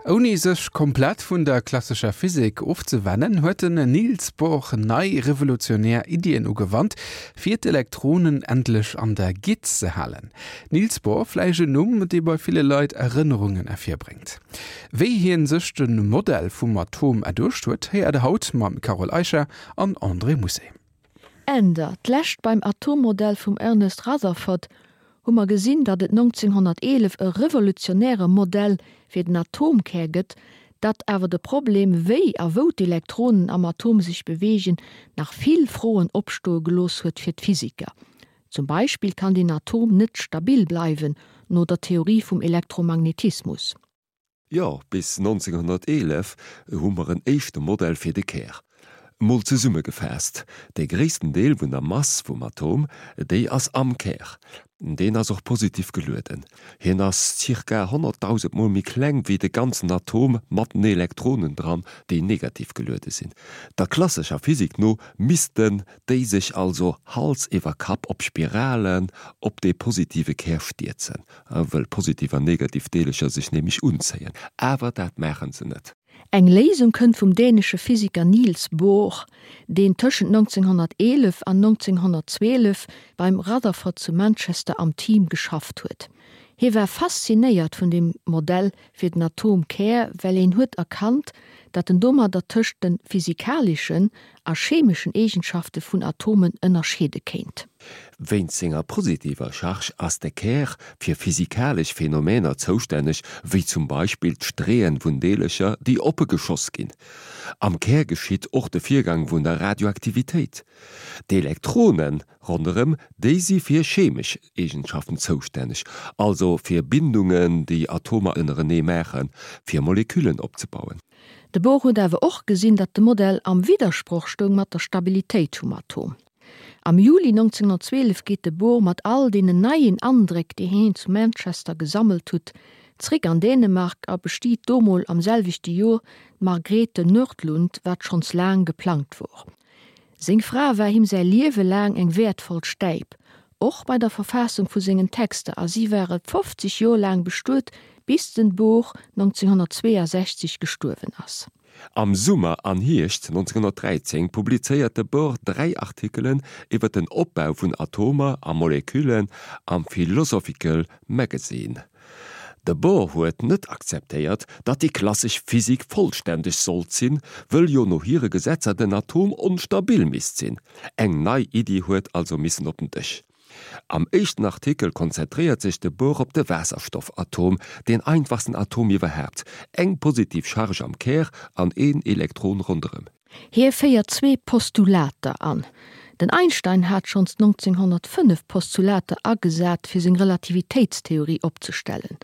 Ouni sech komplett vun der klassescher Physik ofzewennen, huet den Niels Bohr nei revolutionär Iddien ugewannt, fir d'Elektronen endlech an der Gitt ze halen. Niels Bohr, vläicht en Numm, dee bei ville Leit Erënnerungen ervirbréngt. Wéi hien sech de Modell vum Atom erduecht huet, héiert der haut mam Carole Eicher an André Mousset. Änder, D'lescht beim Atommodell vum Ernest Rutherford hu mer gesinn, datt et 1911 e revolutionäre Modell fir den Atomkär gëtt, datt awer de Problem, wéi a wou d'Elektronen am Atom sech beweegen, nach vill Froen opstoe gelooss huet fir d'Physiker. Zum Beispill kann den Atom net stabil bleiwen, no der Theorie vum Elektromagnetismus. Jo, bis 1911 hu mer en éischte Modell fir de Kär. Mol zesummegefaasst, De gréissten Deel vun der Mass vum Atom, déi ass am Kär. Deen ass och positiv gelueden. Hien ass zirka 100.000 Mol méi kleng wéi de ganzen Atom mat den Elektronen dran, déi negativ geluede sinn. Der klassescher Physik no missten déi sech also Hals iwwer Kapp op Spiralen op dee positive Kär stierzen. Wëll positiv an negativ Deelecher sech nämlech unzéien. Awer dat maachen se net. Eng Léisung kënnt vum dänesche Physiker Niels Bohr, deen tëschent 1911 an 1912 beim Rutherford zu Manchester am Team geschafft huet. Hie war faszinéiert vun dem Modell fir den Atomkär, well een huet erkannt, datt en domadder tëscht de physikaleschen a chemeschen Eegenschafte vun Atomen ënnerscheede kéint. Wéinst senger positiver Charge ass de Kär fir physikalesch Phänomener zoustänneg, wéi zum Beispill d'Streeën vun Deelercher, déi oppe geschoss ginn. Am Kär geschitt och de Virgang vun der Radioaktivitéit. D'Elektrone ronderëm déi si fir chemesch Eegenschaften zoustänneg, also fir Bindungen, déi Atomer ënnerenee maachen, fir Moleküllen opzebauen. De Bohr huet awer och gesinn, datt de Modell am Widdersproch stoung mat der Stabilitéit vum Atom. Am Juli 1912 geet de Bohr mat all deenen neien Andréck, déi hien zu Manchester gesammelt hutt, zréck an Dänemark a bestiet do mol am selwechte Jor d'Margrethe Nordlund, wat schonns laang geplangt wor. Seng Fra war him säi Liewe laang eng wäertvoll Stäip, och bei der Verfaassung vu sengen Texter, a si ware 50 Jor laang bestuet, bis den Bohr 1962 gestuerwen ass. Am Summer an Hierscht 1913 publizéiert de Bohr dräi Artikelen iwwer den Opbau vun Atomer a Moleküllen am Philosophical Magazine. De Bohr huet net akzeptéiert, datt déi klassesch Physik vollständeg sollt sinn, wëll jo no hire Gesetzer den Atom onstabil misst sinn. Eng nei Iddi huet also missen op den Dësch. Am éischten Artikel konzentréiert sech de Bohr op de Waasserstoffatom, deen einfachsten Atom iwwerhaapt, eng positiv Charge am Kär an een Elektron ronderëm. Hie féiert zwee Postulater an. Den Einstein hat schonns 1905 Postulater agesat fir seng Relativitéitstheorie opzestellen.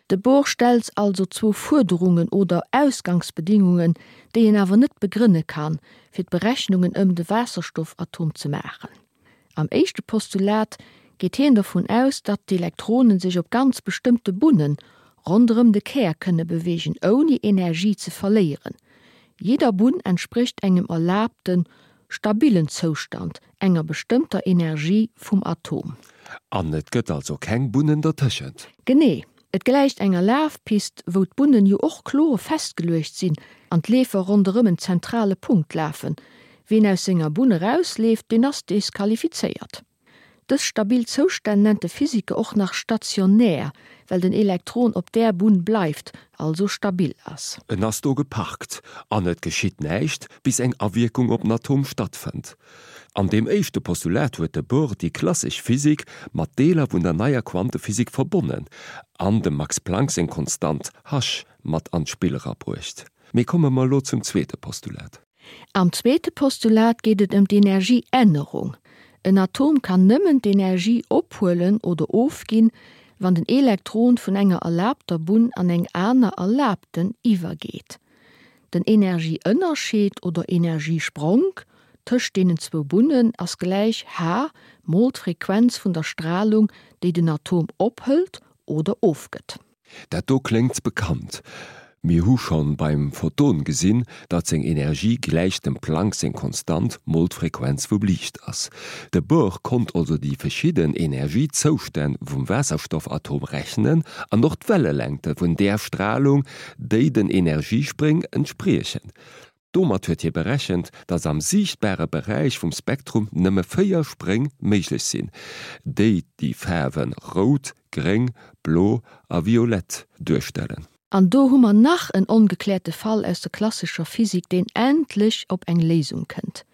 De Bohr stellt also zwou Fuerderungen oder Ausgangsbedingungen, déi een awer net begrënne kann, fir d'Berechnungen ëm de Waasserstoffatom ze maachen. Am éischte Postulat geet hien dovun aus, datt d'Elektronen sech op ganz bestëmmte Bunne ronderëm de Kär kënne beweegen, ouni Energie ze verléieren. Jidder Bunn entsprécht engem erlaabten, stabillen Zoustand, enger bestëmmter Energie vum Atom. An et gëtt also keng Bunnen dertëschent. Genee. Et gläicht enger Lafpist, wou d'Bunnen jo och kloer festgeluecht sinn an d'Leefer ronderëm en zentrale Punkt lafen. Ween aus senger Bunn erausleeft, deen ass desqualifizéiert. Dës stabil Zoustänn nennt de Physiker och nach stationär, well den Elektron op där Bunn bleift, also stabil ass. En ass do geparkt an et geschitt näischt, bis eng Awierkung op den Atom stattfënnt. An deem éischte Postulat huet de Bohr déi klassesch Physik mat Deeler vun der neier Quantephysik verbonnen an dem Max Planck seng Konstant h mat an d'Spill erabruecht. Mee komme mer elo zum zweete Postulat. Am zweete Postulat geet et ëm d'Energieännerung. En Atom kann nëmmen d'Energie ophuelen oder ofginn, wann den Elektron vun enger erlaabter Bunn an eng aner erlaabten iwwergeet. Den Energieënnerscheed oder Energiespronk tëscht deenen zwou Bunnen ass gläich h mol d'Frequenz vun der Stralung, déi den Atom ophëlt oder ofgëtt. Dat do kléngt bekannt. Mir hu schonn beim Photon gesinn, datt seng Energie gläich dem Planck seng Konstant mol d'Frequenz vum Liicht ass. De Bohr konnt also déi verschidden Energiezoustänn vum Waasserstoffatom rechnen an och d'Wellelängte vun där Stralung, déi den Energiespréng entspriechen. Domat huet hie berechent, datt am siichtbare Beräich vum Spektrum nëmme 4 Spréng méiglech sinn, déi déi Faarwe rout, gréng, blo a violett duerstellen. An do hu mer nach en ongekläerte Fall aus der klassescher Physik, deen endlech op eng Léisung kënnt.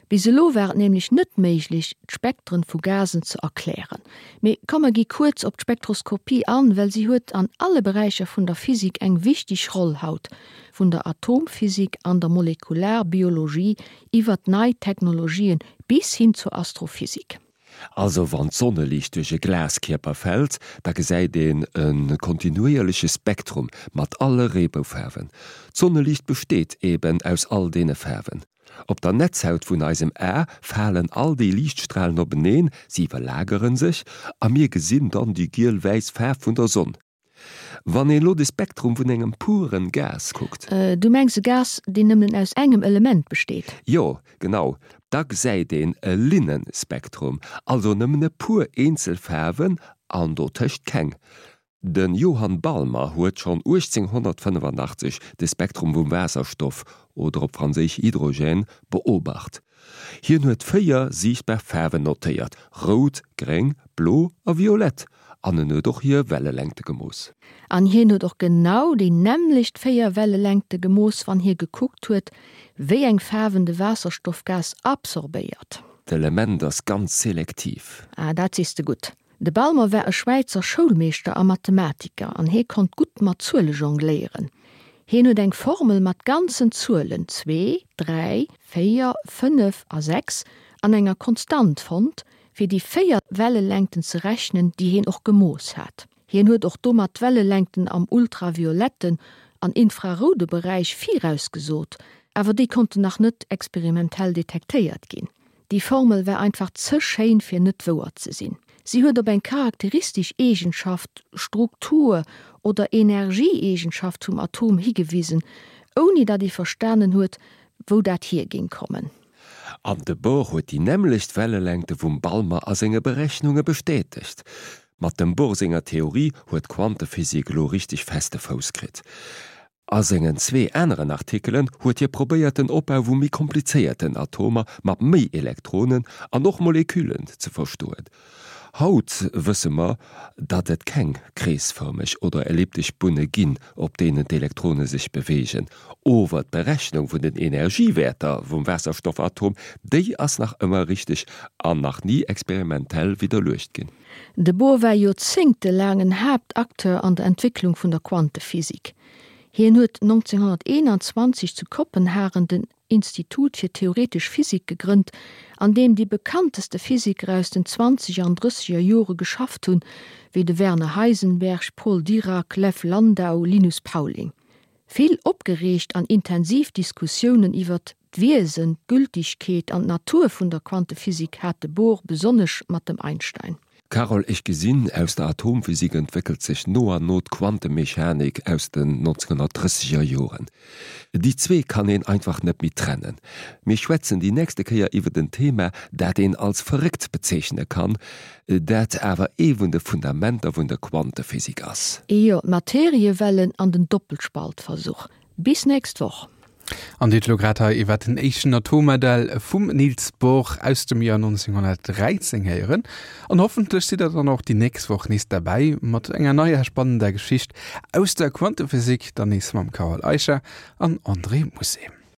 Bis elo war et nämlech net méiglech, d'Spektren vu Gasen ze erklären. Mee komm mer gi kuerz op d'Spektroskopie an, well si huet an alle Beräicher vun der Physik eng wichteg Roll haut, vun der Atomphysik an der Molekularbiologie iwwert nei Technologien bis hin zur Astrophysik. Also wann d'Sonneliicht duerch e Glaskierper fält, da gesäit een e kontinuéierleche Spektrum mat alle Reeboufaarwen. D'Sonneliicht besteet eben aus all deene Faarwen. Op der Netzhaut vun eisem A falen all déi Liichtstralen openeen, si iwwerlagere sech a mir gesinn dann déi giel-wäiss Faarf vun der Sonn. Wann een elo de Spektrum vun engem puren Gas kuckt. Du mengs e Gas, deen nëmmen aus engem Element besteet? Jo, genau. Da gesäit een e Linnenspektrum, also nëmmen e puer eenzel Faarwen an dotëscht keng. De Johann Balmer huet schonn 1885 de Spektrum vum Waasserstoff, oder op Franséisch Hydrogène, beobacht. Hien huet 4 siichtbar Faarwen notéiert, rout, gréng, blo a violett, an en huet och hir Wellelängte gemooss. An hien huet och genau déi nämmlecht 4 Wellelängte gemooss, wann hie gekuckt huet, wéi eng Faarwen de Waasserstoffgas absorbéiert. D'Element ass ganz selektiv. Ah, dat sees de gutt. De Balmer war e Schwäizer Schoulmeeschter a Mathematiker an hee konnt gutt mat Zuele jongléieren. Hien huet eng Formel mat ganzen Zuelen, zwee, dräi, véier, fënnef a sechs, an enger Konstant fonnt, fir déi véier Wellelängten ze rechnen, déi hien och gemooss hat. Hien huet och domat d'Wellelängten am ultravioletten an infraroude Beräich virausgesot, awer déi konnten nach net experimentell detektéiert ginn. Déi Formel war einfach ze schéin fir net wouer ze sinn. Si huet op eng charakteristesch Eegenschaft, Struktur oder Energieeegenschaft vum Atom higewisen, ouni datt ee verstanen huet, wou dat hier géing kommen. An de Bohr huet déi nämmlecht Wellelängte vum Balmer a senge Berechnunge bestätegt. Mat dem Bohr senger Theorie huet d'Quantephysik elo richteg feste Fouss kritt. A sengen zwee aneren Artikelen huet hie probéiert den Opbau vu méi komplizéierten Atomer mat méi Elektronen an och Moleküllen ze verstoen. Haut wësse mer, datt et keng kreesfërmeg oder elliptesch Bunne ginn, op deenen d'Elektrone sech beweegen. Ower d'Berechnung vun den Energiewäerter vum Waasserstoffatom, déi ass nach ëmmer richteg an nach ni experimentell widderluecht ginn. De Bohr war joerzéngtelaang en Haaptacteur an der Entwécklung vun der Quantephysik. Hien huet 1921 zu Kopenhagen den Institut fir theoretesch Physik gegrënnt, an deem déi bekannteste Physiker aus den zwanzeger an drësseger Jore geschafft hunn, wéi de Werner Heisenberg, Paul Dirac, Lev Landau, Linus Pauling. Vill opgereegt an intensiv Diskussiounen iwwert d'Wiesen, d'Gültigkeet an d'Natur vun der Quantephysik hat de Bohr besonnesch mat dem Einstein. Carole, Ech gesinn, aus der Atomphysik entwéckelt sech no an no d'Quantemechanik aus den 1930er Joren. Déi zwee kann een einfach net méi trennen. Mir schwätzen déi nächste Kéier iwwert en Thema, dat een als verréckt bezeechne kann, dat awer ee vun de Fundamenter vun der Quantephysik ass. Jo, d'Materiewellen an den Doppelspaltversuch. Bis nächst Woch. An Dir hutt elo grad hei iwwer den éischten Atommodell vum Niels Bohr aus dem Joer 1913 héieren. An hoffentlech sidd der dann och déi nächst Woch nees derbäi mat enger neier spannender Geschicht aus der Quantephysik, dann nees mam Carole Eicher an André Musset.